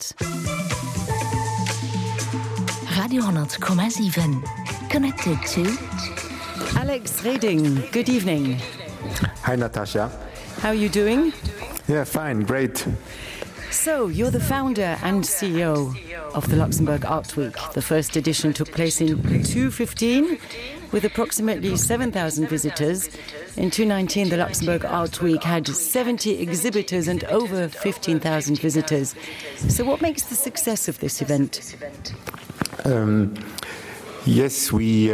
Radio 100,7. Connected to Alex Reding. Good evening. Hi, Natasha. How are you doing? Yeah, fine, great. So, you're the founder and CEO of the Luxembourg Art Week. The first edition took place in 2015 with approximately 7,000 visitors. In 2019, the Luxembourg Art Week had 70 exhibitors and over 15,000 visitors. So what makes the success of this event? Yes, we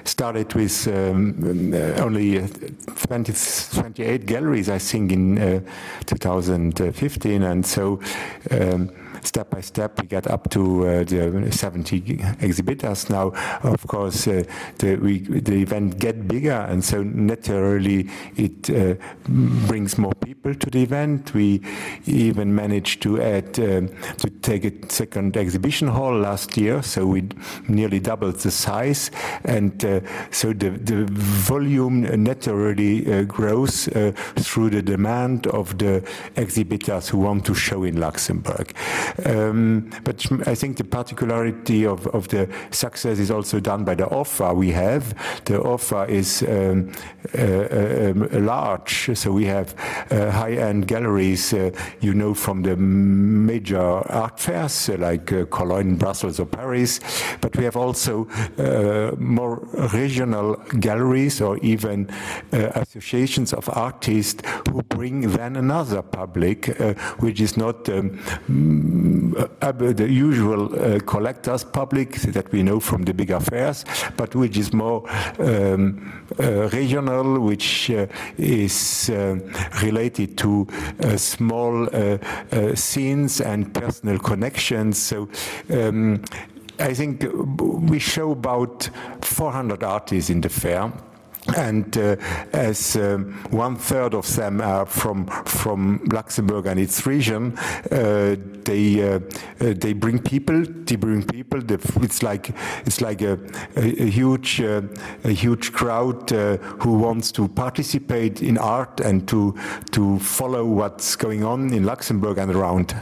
started with only 28 galleries, I think, in 2015, and so step by step we got up to the 70 exhibitors now. Of course, the event get bigger, and so naturally it brings more people to the event. We even managed to add to take a second exhibition hall last year, so we nearly doubled the size, and so the volume naturally grows through the demand of the exhibitors who want to show in Luxembourg. But I think the particularity of the success is also done by the offer we have. The offer is large, so we have high-end galleries, from the major art fairs like Cologne, Brussels or Paris, but we have also more regional galleries or even associations of artists who bring then another public, which is not the usual collectors public that we know from the big fairs, but which is more regional, which is related to small scenes and personal connections. So I think we show about 400 artists in the fair. And as 1/3 of them are from Luxembourg and its region, they bring people. It's like a huge crowd who wants to participate in art and to follow what's going on in Luxembourg and around.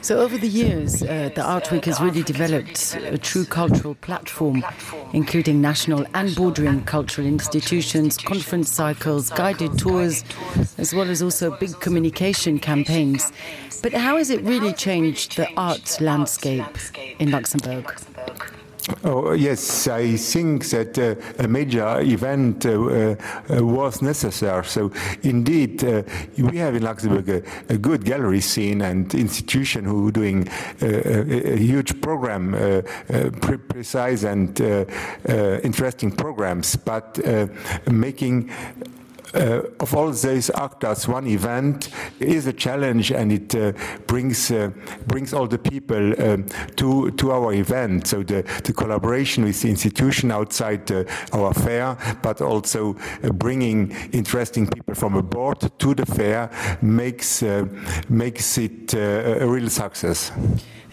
So over the years, the Art Week has really developed a true cultural platform, including national and bordering cultural institutions, conference cycles, guided tours, as well as also big communication campaigns. But how has it really changed the art landscape in Luxembourg? Oh, yes, I think that a major event was necessary. So, indeed, we have in Luxembourg a good gallery scene and institution who are doing a huge program, precise and interesting programs, but making of all these actors, one event is a challenge, and it brings all the people to our event. So the collaboration with the institution outside our fair, but also bringing interesting people from abroad to the fair makes it a real success.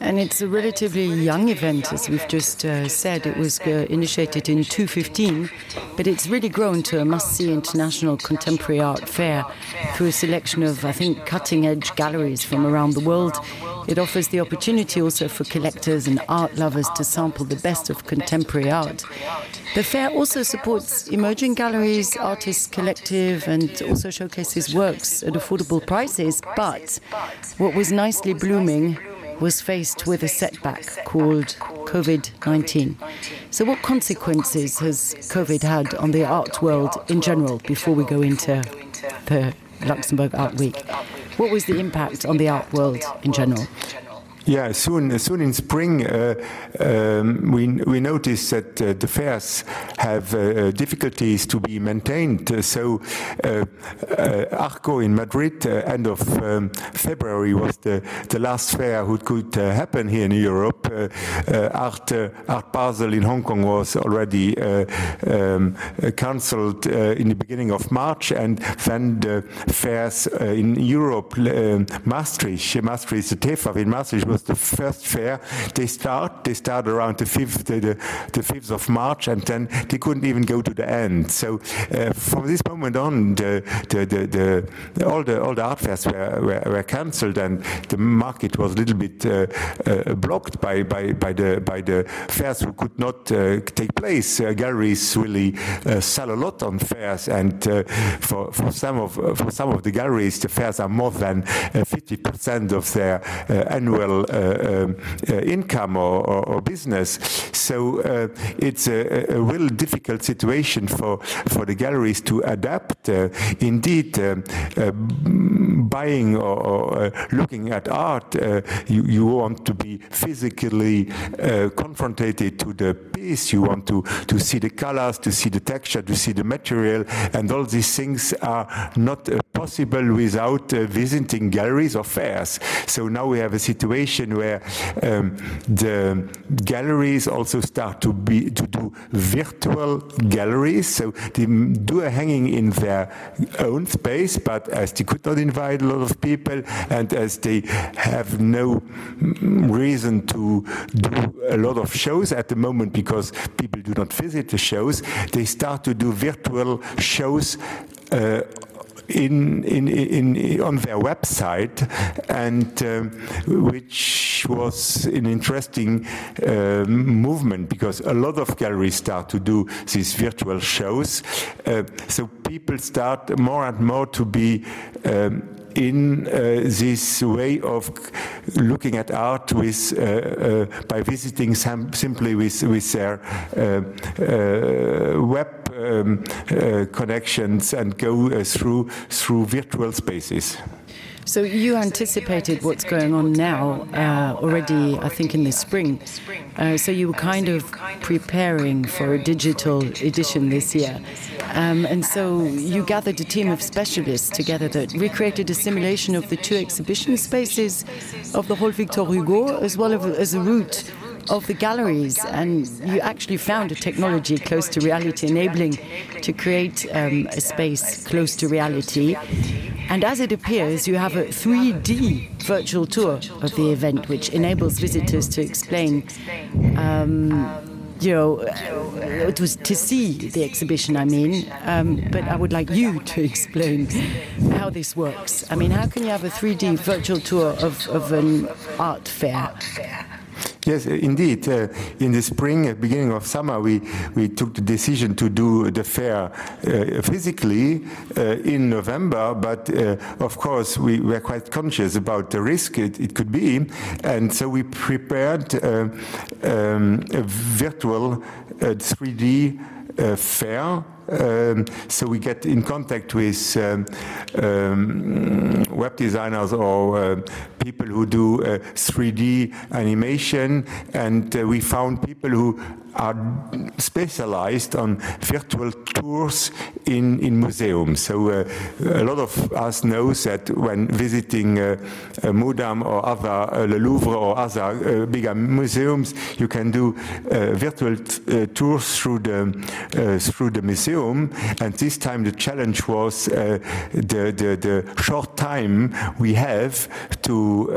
And it's a relatively young event, as we've just said. It was initiated in 2015, but it's really grown to a must-see international contemporary art fair through a selection of, I think, cutting-edge galleries from around the world. It offers the opportunity also for collectors and art lovers to sample the best of contemporary art. The fair also supports emerging galleries, artists collective, and also showcases works at affordable prices. But what was nicely blooming was faced with a setback called COVID-19. So what consequences has COVID had on the art world in general before we go into the Luxembourg Art Week? What was the impact on the art world in general? Yeah, soon in spring, we noticed that the fairs have difficulties to be maintained. So Arco in Madrid, end of February, was the last fair who could happen here in Europe. Art Basel in Hong Kong was already cancelled in the beginning of March, and then the fairs in Europe, Maastricht, the TEFAF in Maastricht, was the first fair. They start around the 5th of March, and then they couldn't even go to the end. So from this moment on, all the art fairs were cancelled, and the market was a little bit blocked by the fairs who could not take place. Galleries really sell a lot on fairs, and for some of the galleries, the fairs are more than 50% of their annual income or business. So it's a real difficult situation for the galleries to adapt. Indeed, buying or looking at art, you want to be physically confronted to the piece. You want to see the colors, to see the texture, to see the material, and all these things are not possible without visiting galleries or fairs. So now we have a situation where the galleries also start to do virtual galleries. So they do a hanging in their own space, but as they could not invite a lot of people, and as they have no reason to do a lot of shows at the moment because people do not visit the shows, they start to do virtual shows on their website, and which was an interesting movement, because a lot of galleries start to do these virtual shows. So people start more and more to be in this way of looking at art with by visiting simply with their web connections and go through virtual spaces. So you anticipated what's going on now already, I think, in the spring. So you were kind of preparing for a digital edition this year. And so you gathered a team of specialists together that recreated a simulation of the two exhibition spaces of the Hall Victor Hugo, as well as a route of the galleries, and you actually found a technology close to reality, enabling to create a space close to reality. And as it appears, you have a 3D virtual tour of the event, which enables visitors to explain, it was to see the exhibition, I mean, but I would like you to explain how this works. I mean, how can you have a 3D virtual tour of an art fair? Yes, indeed. In the spring, beginning of summer, we took the decision to do the fair physically in November, but of course we were quite conscious about the risk it could be, and so we prepared a virtual 3D fair. So we get in contact with web designers or people who do 3D animation, and we found people who are specialized on virtual tours in museums. So a lot of us knows that when visiting Moudam or other Le Louvre or other bigger museums, you can do virtual tours through the museum. And this time the challenge was the short time we have to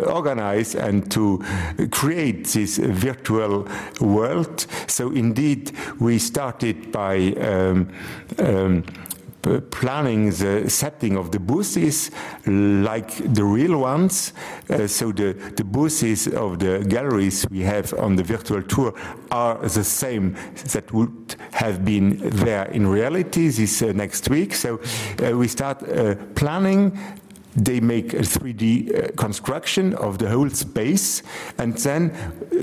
organize and to create this virtual world. So indeed we started by planning the setting of the booths like the real ones. So the booths of the galleries we have on the virtual tour are the same that would have been there in reality this next week. So we start planning. They make a 3D construction of the whole space, and then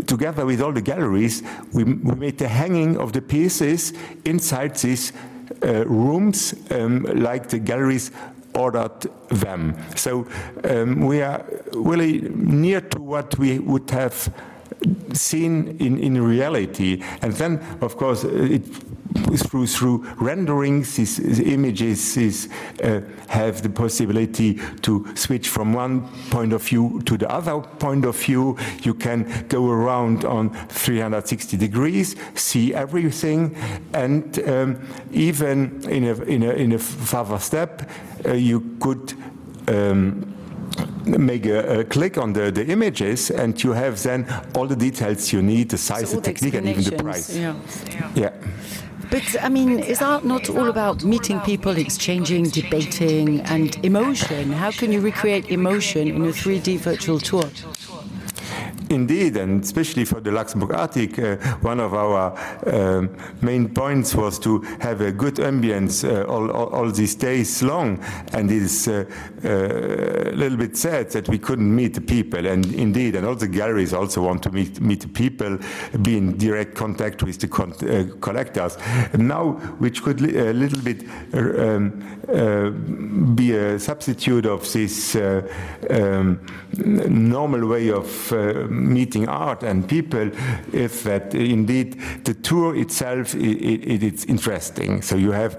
together with all the galleries we made the hanging of the pieces inside these rooms like the galleries ordered them. So we are really near to what we would have seen in reality. And then, of course, through renderings, these images have the possibility to switch from one point of view to the other point of view. You can go around on 360 degrees, see everything, and even in a further step, you could make a click on the images, and you have then all the details you need, the size, so the technique, and even the price. Yeah. But, I mean, is art not all about meeting people, exchanging, debating, and emotion? How can you recreate emotion in a 3D virtual tour? Indeed, and especially for the Luxembourg Art Week, one of our main points was to have a good ambience all these days long, and it is a little bit sad that we couldn't meet the people, and indeed, and all the galleries also want to meet the people, be in direct contact with the collectors. And now, which could a little bit be a substitute of this normal way of meeting art and people, is that indeed the tour itself it's interesting. So you have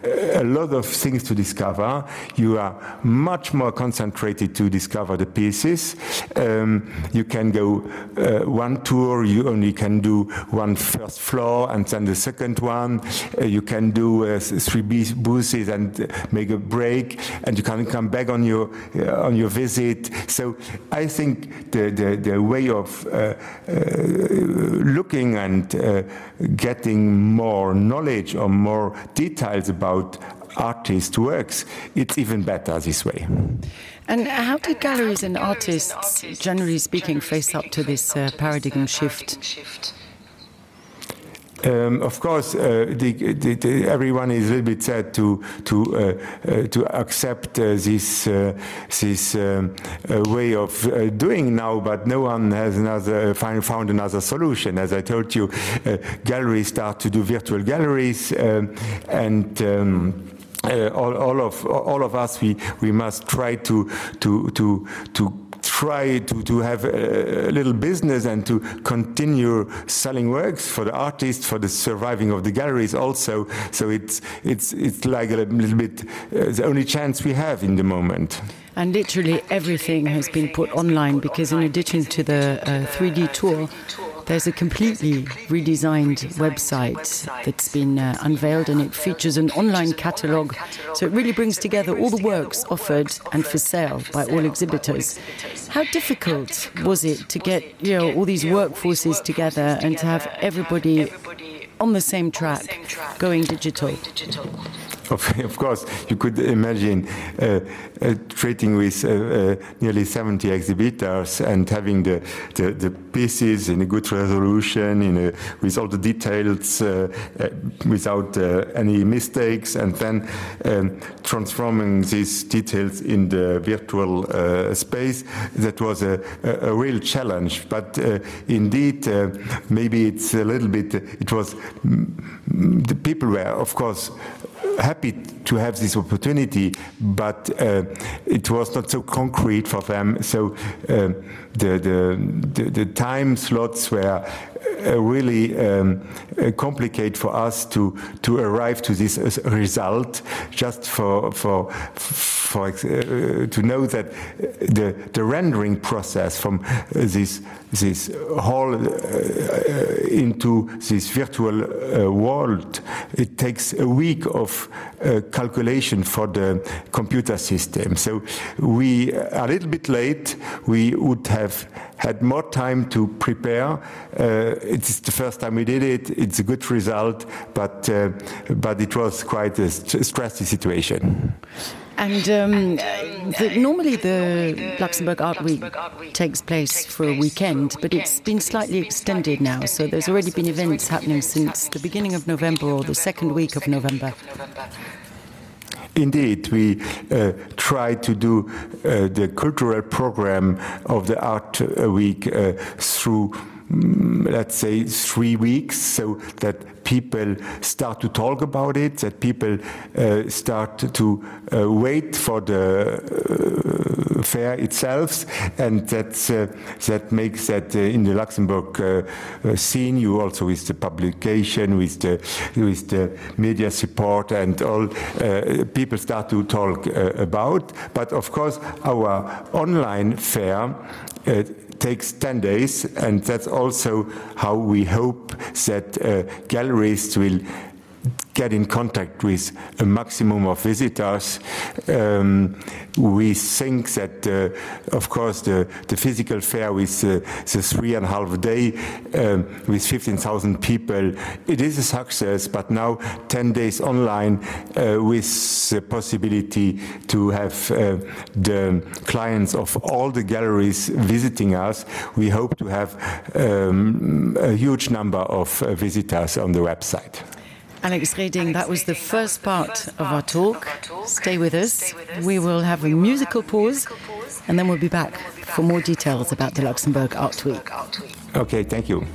a lot of things to discover. You are much more concentrated to discover the pieces. You can go one tour. You only can do one first floor and then the second one. You can do 3 booths and make a break, and you can come back on your visit. So I think the way of looking and getting more knowledge or more details about artists' works, it's even better this way. And how did galleries and artists, generally speaking, face up to this paradigm shift? Of course, everyone is a little bit sad to accept this way of doing now, but no one has found another solution. As I told you, galleries start to do virtual galleries, and all of us we must try to have a little business and to continue selling works for the artists, for the surviving of the galleries also. So it's like a little bit the only chance we have in the moment. And literally everything has been put online, because in addition to the 3D tour, there's a completely redesigned website that's been unveiled, and it features an online catalogue. So it really brings together all the works offered and for sale by all exhibitors. How difficult was it to get all these workforces together and to have everybody on the same track going digital? Of course, you could imagine treating with nearly 70 exhibitors and having the pieces in a good resolution, with all the details, without any mistakes, and then transforming these details in the virtual space. That was a real challenge. But indeed, maybe it's a little bit, the people were, of course, happy to have this opportunity, but it was not so concrete for them. So the time slots were really complicated for us to arrive to this result. Just to know that the rendering process from this hall into this virtual world, it takes a week of calculation for the computer system. So we are a little bit late. We would have had more time to prepare. It's the first time we did it. It's a good result, but it was quite a stressy situation. And normally the Luxembourg Art Week takes place for a weekend, but it's been slightly extended now. So there's already been events happening since the beginning of November or the second week of November. Indeed, we try to do the cultural program of the Art Week through, let's say, 3 weeks, so that people start to talk about it, that people start to wait for the fair itself, and that makes that in the Luxembourg scene, you also with the publication, with the media support and all, people start to talk about. But of course, our online fair takes 10 days, and that's also how we hope that galleries will get in contact with a maximum of visitors. We think that, of course, the physical fair with the 3.5 day with 15,000 people, it is a success, but now 10 days online with the possibility to have the clients of all the galleries visiting us, we hope to have a huge number of visitors on the website. Alex Reding, that was the first part of our talk. Stay with us. We will have a musical pause, and then we'll be back for more details about the Luxembourg Art Week. Okay, thank you.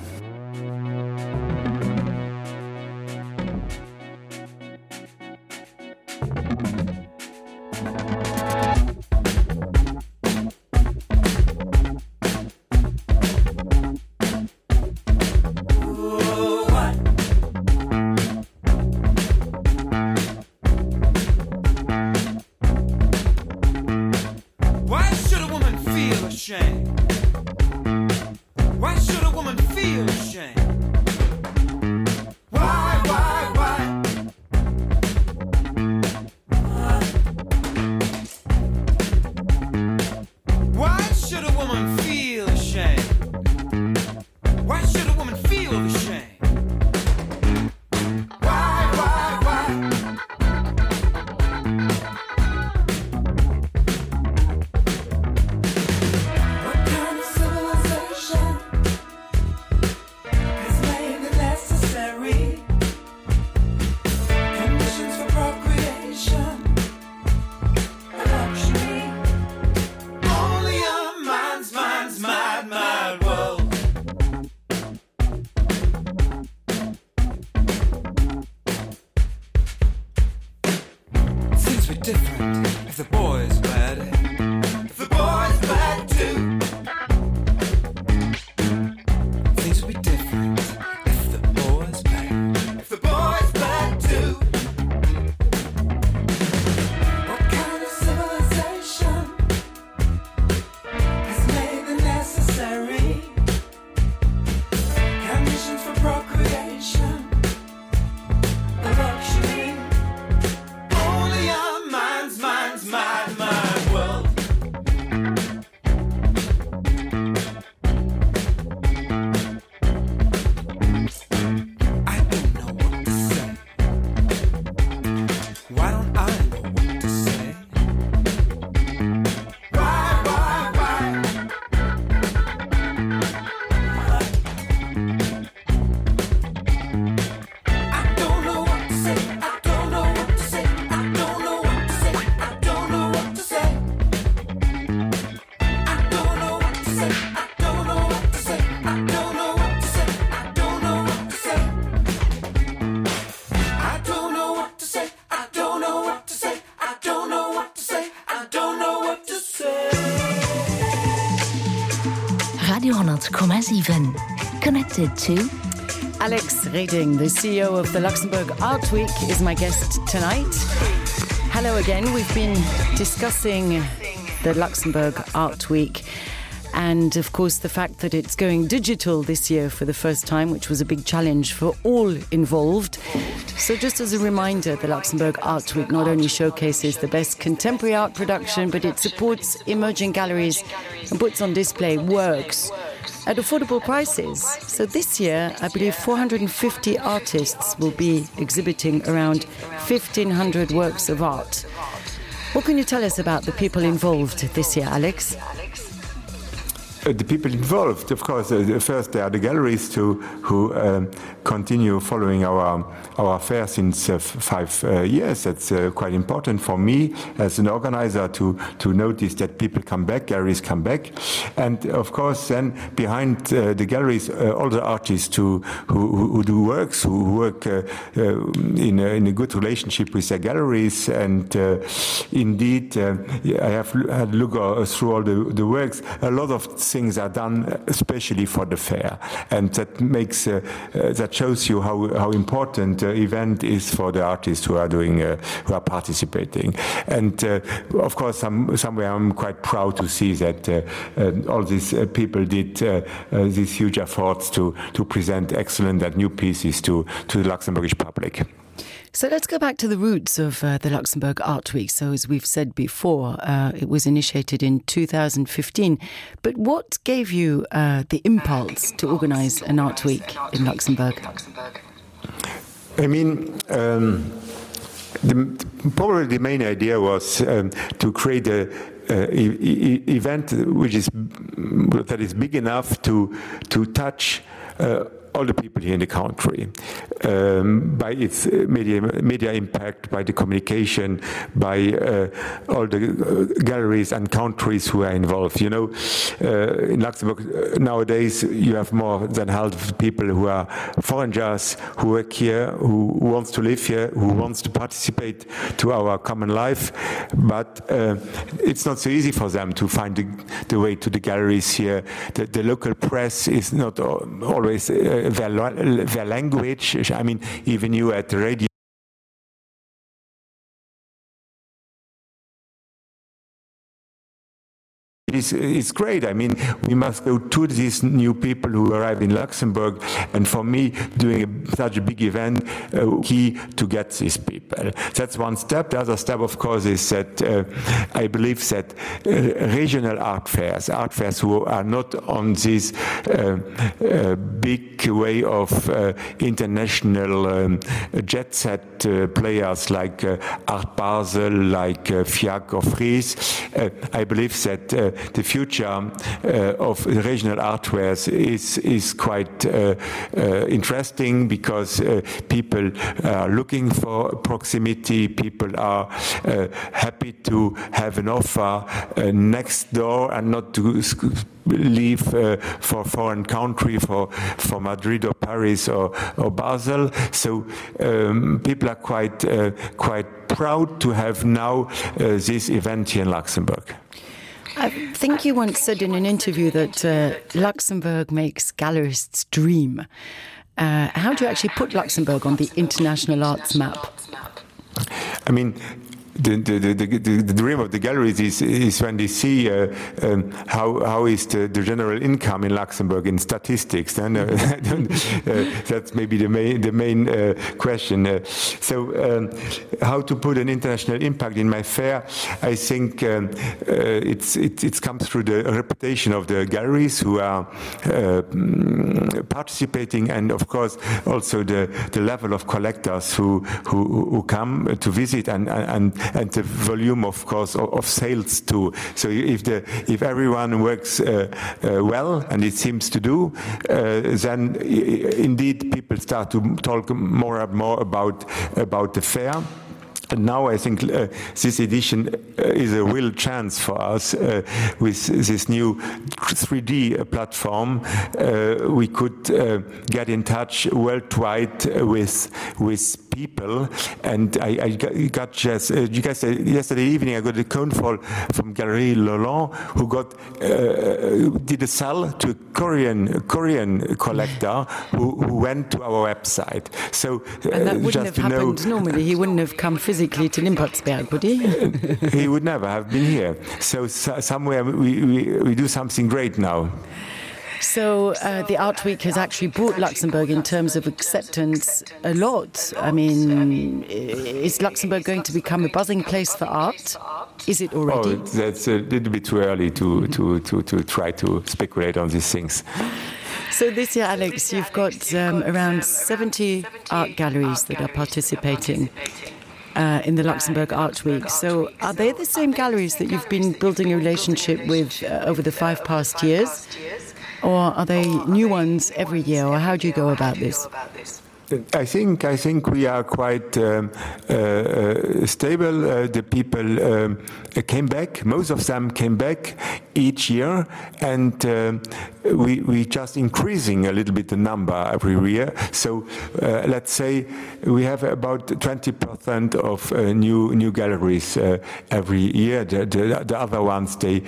Connected to Alex Reding, the CEO of the Luxembourg Art Week, is my guest tonight. Hello again. We've been discussing the Luxembourg Art Week and, of course, the fact that it's going digital this year for the first time, which was a big challenge for all involved. So just as a reminder, the Luxembourg Art Week not only showcases the best contemporary art production, but it supports emerging galleries and puts on display works at affordable prices. So this year, I believe 450 artists will be exhibiting around 1,500 works of art. What can you tell us about the people involved this year, Alex? The people involved, of course, first there are the galleries who continue following our fair since 5 years. That's quite important for me as an organizer to notice that people come back, galleries come back. And of course, then behind the galleries, all the artists who do works, who work in a good relationship with their galleries. And indeed, I have had a look through all the works. A lot of things are done especially for the fair, and that makes that shows you how important the event is for the artists who are doing who are participating. And of course, somewhere I'm quite proud to see that all these people did these huge efforts to present excellent and new pieces to the Luxembourgish public. So let's go back to the roots of the Luxembourg Art Week. So as we've said before, it was initiated in 2015. But what gave you the impulse to organize an art week in Luxembourg? I mean, probably the main idea was to create a event that is big enough to touch all the people here in the country, by its media impact, by the communication, by all the galleries and countries who are involved. You know, in Luxembourg nowadays you have more than half of the people who are foreigners, who work here, who wants to live here, who wants to participate to our common life, but it's not so easy for them to find the way to the galleries here. The local press is not always their language. I mean, even you at the radio, it's great. I mean, we must go to these new people who arrive in Luxembourg, and for me, doing such a big event, key to get these people. That's one step. The other step, of course, is that I believe that regional art fairs who are not on this big way of international jet set players like Art Basel, like FIAC or Fries, I believe that the future of regional art fairs is quite interesting, because people are looking for proximity. People are happy to have an offer next door and not to leave for a foreign country, for Madrid or Paris or Basel. So people are quite proud to have now this event here in Luxembourg. I think you once said in an interview that Luxembourg makes gallerists dream. How do you actually put Luxembourg on the international arts map? I mean, the dream of the galleries is when they see how is the general income in Luxembourg in statistics. And that's maybe the main question. So how to put an international impact in my fair? I think it comes through the reputation of the galleries who are participating, and of course also the level of collectors who come to visit, and the volume, of course, of sales too. So if everyone works well, and it seems to do, then indeed people start to talk more and more about the fair. And now I think this edition is a real chance for us with this new 3D platform. We could get in touch worldwide with people, and I got just you guys yesterday evening I got a phone call from Galerie Lolland, who did a sell to a Korean collector who went to our website. So and that wouldn't have happened normally. He wouldn't have come physically to Limpotsberg, would he? He would never have been here. So somewhere we do something great now. So the Art Week has actually brought Luxembourg in terms of acceptance a lot. I mean, is Luxembourg going to become a buzzing place for art? Is it already? Oh, that's a little bit too early to try to speculate on these things. So this year, Alex, you've got around 70 art galleries that are participating in the Luxembourg Art Week. So are they the same galleries that you've been building a relationship with over the 5 past years? Or are they new ones every year, or how do you go about this? I think we are quite stable. The people came back. Most of them came back each year, and we just increasing a little bit the number every year. So let's say we have about 20% of new galleries every year. The other ones they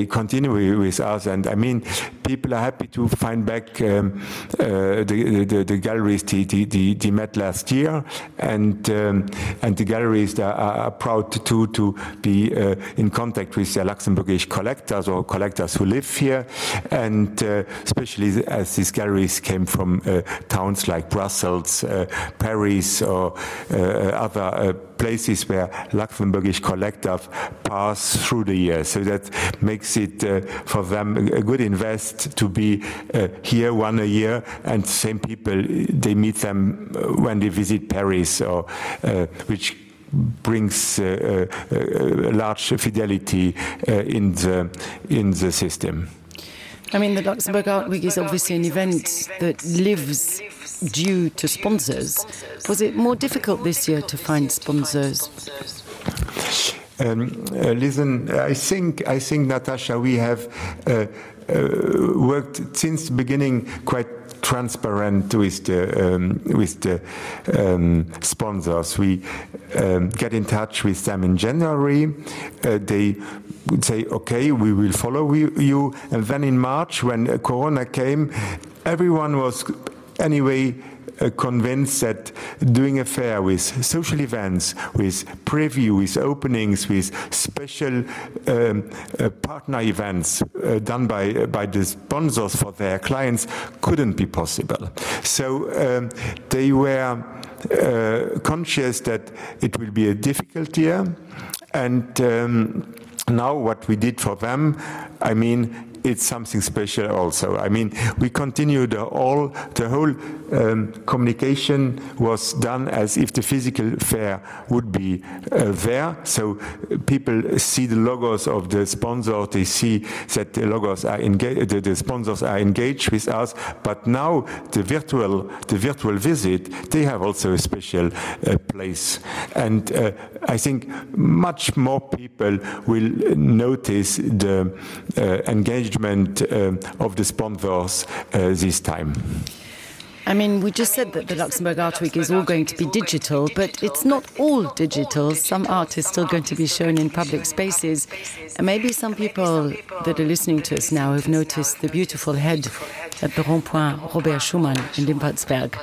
continue with us, and I mean people are happy to find back the galleries they met last year, and the galleries are proud to be in contact with their Luxembourgish collectors or collectors who live here, and and especially as these galleries came from towns like Brussels, Paris, or other places where Luxembourgish collectors pass through the year. So that makes it for them a good invest to be here one a year, and same people, they meet them when they visit Paris, or which brings large fidelity in the system. I mean, the Luxembourg Art Week is obviously an event that lives due to sponsors. Was it more difficult this year to find sponsors? Listen, I think, Natasha, we have worked since the beginning quite transparent with the sponsors. We get in touch with them in January. They would say, okay, we will follow you. And then in March, when Corona came, everyone was anyway convinced that doing a fair with social events, with preview, with openings, with special partner events done by the sponsors for their clients couldn't be possible. So they were conscious that it will be a difficult year, and now what we did for them, I mean, it's something special also. I mean, we continued the whole communication was done as if the physical fair would be there. So people see the logos of the sponsor, they see that the logos are engaged, the sponsors are engaged with us. But now the virtual visit, they have also a special place. And I think much more people will notice the engagement of the sponsors this time. I mean, we just said that the Luxembourg Art Week is all going to be digital, but it's not all digital. Some art is still going to be shown in public spaces. And maybe some people that are listening to us now have noticed the beautiful head at the Rond-Point Robert Schumann in Limpertsberg.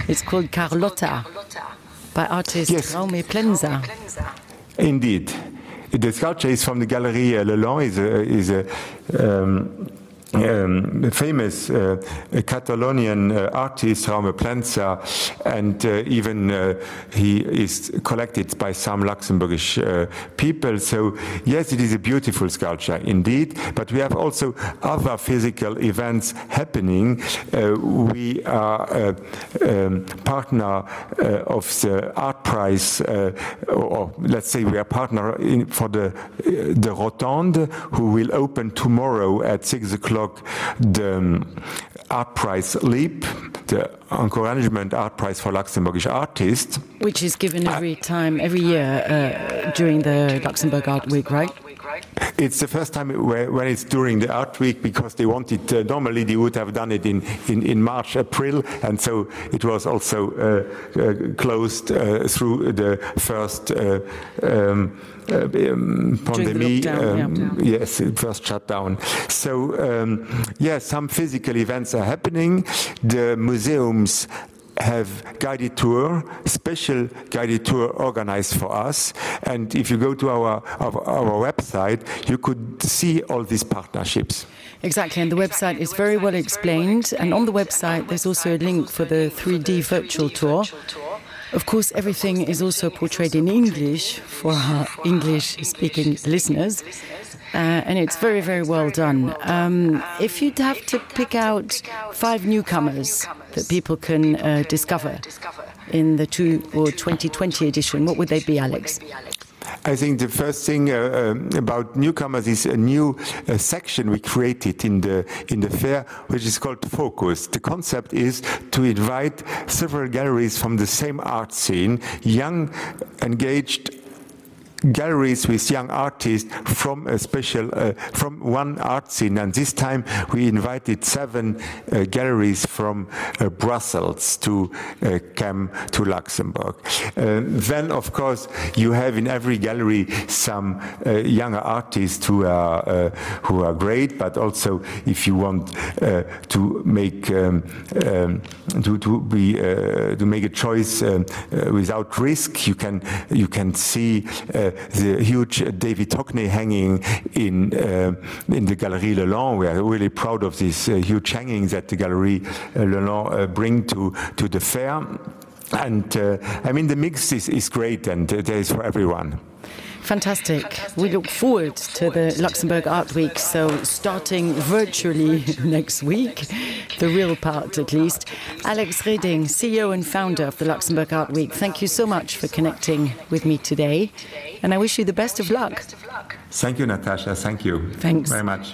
It's called Carlotta, by artist Raume Plenza. Indeed. The sculpture is from the Galerie Lelong, is a famous Catalonian artist, Raume Plenza, and even he is collected by some Luxembourgish people. So yes, it is a beautiful sculpture indeed, but we have also other physical events happening. We are a partner of the Art Prize, or let's say we are partner for the Rotonde, who will open tomorrow at 6 o'clock. The Art Prize LEAP, the Encouragement Art Prize for Luxembourgish Artists. Which is given every year during the Luxembourg Art Week, right? It's the first time when it's during the Art Week, because they wanted, normally they would have done it in March, April, and so it was also closed through the first pandemic, yes, first shutdown. So, some physical events are happening. The museums have guided tour, special guided tour organized for us. And if you go to our website, you could see all these partnerships. Exactly, and the website is very well explained. And on the website, there's also a link for the 3D virtual tour. Of course, everything is also portrayed in English for our English-speaking listeners. And it's very, very well done. If you'd have to pick out 5 newcomers that people can discover in the 2020 edition, what would they be, Alex? I think the first thing about newcomers is a new section we created in the fair, which is called Focus. The concept is to invite several galleries from the same art scene, young, engaged galleries with young artists from a special from one art scene, and this time we invited 7 galleries from Brussels to come to Luxembourg. Then of course you have in every gallery some younger artists who are great, but also if you want to make to make a choice without risk, you can see the huge David Hockney hanging in the Galerie Lalande. We are really proud of this huge hanging that the Galerie Lalande bring to the fair. And I mean, the mix is great, and there is for everyone. Fantastic. We look forward to the Luxembourg Art Week, so starting virtually next week, the real part at least. Alex Reding, CEO and founder of the Luxembourg Art Week, thank you so much for connecting with me today, and I wish you the best of luck. Thank you, Natasha. Thank you. Thanks very much.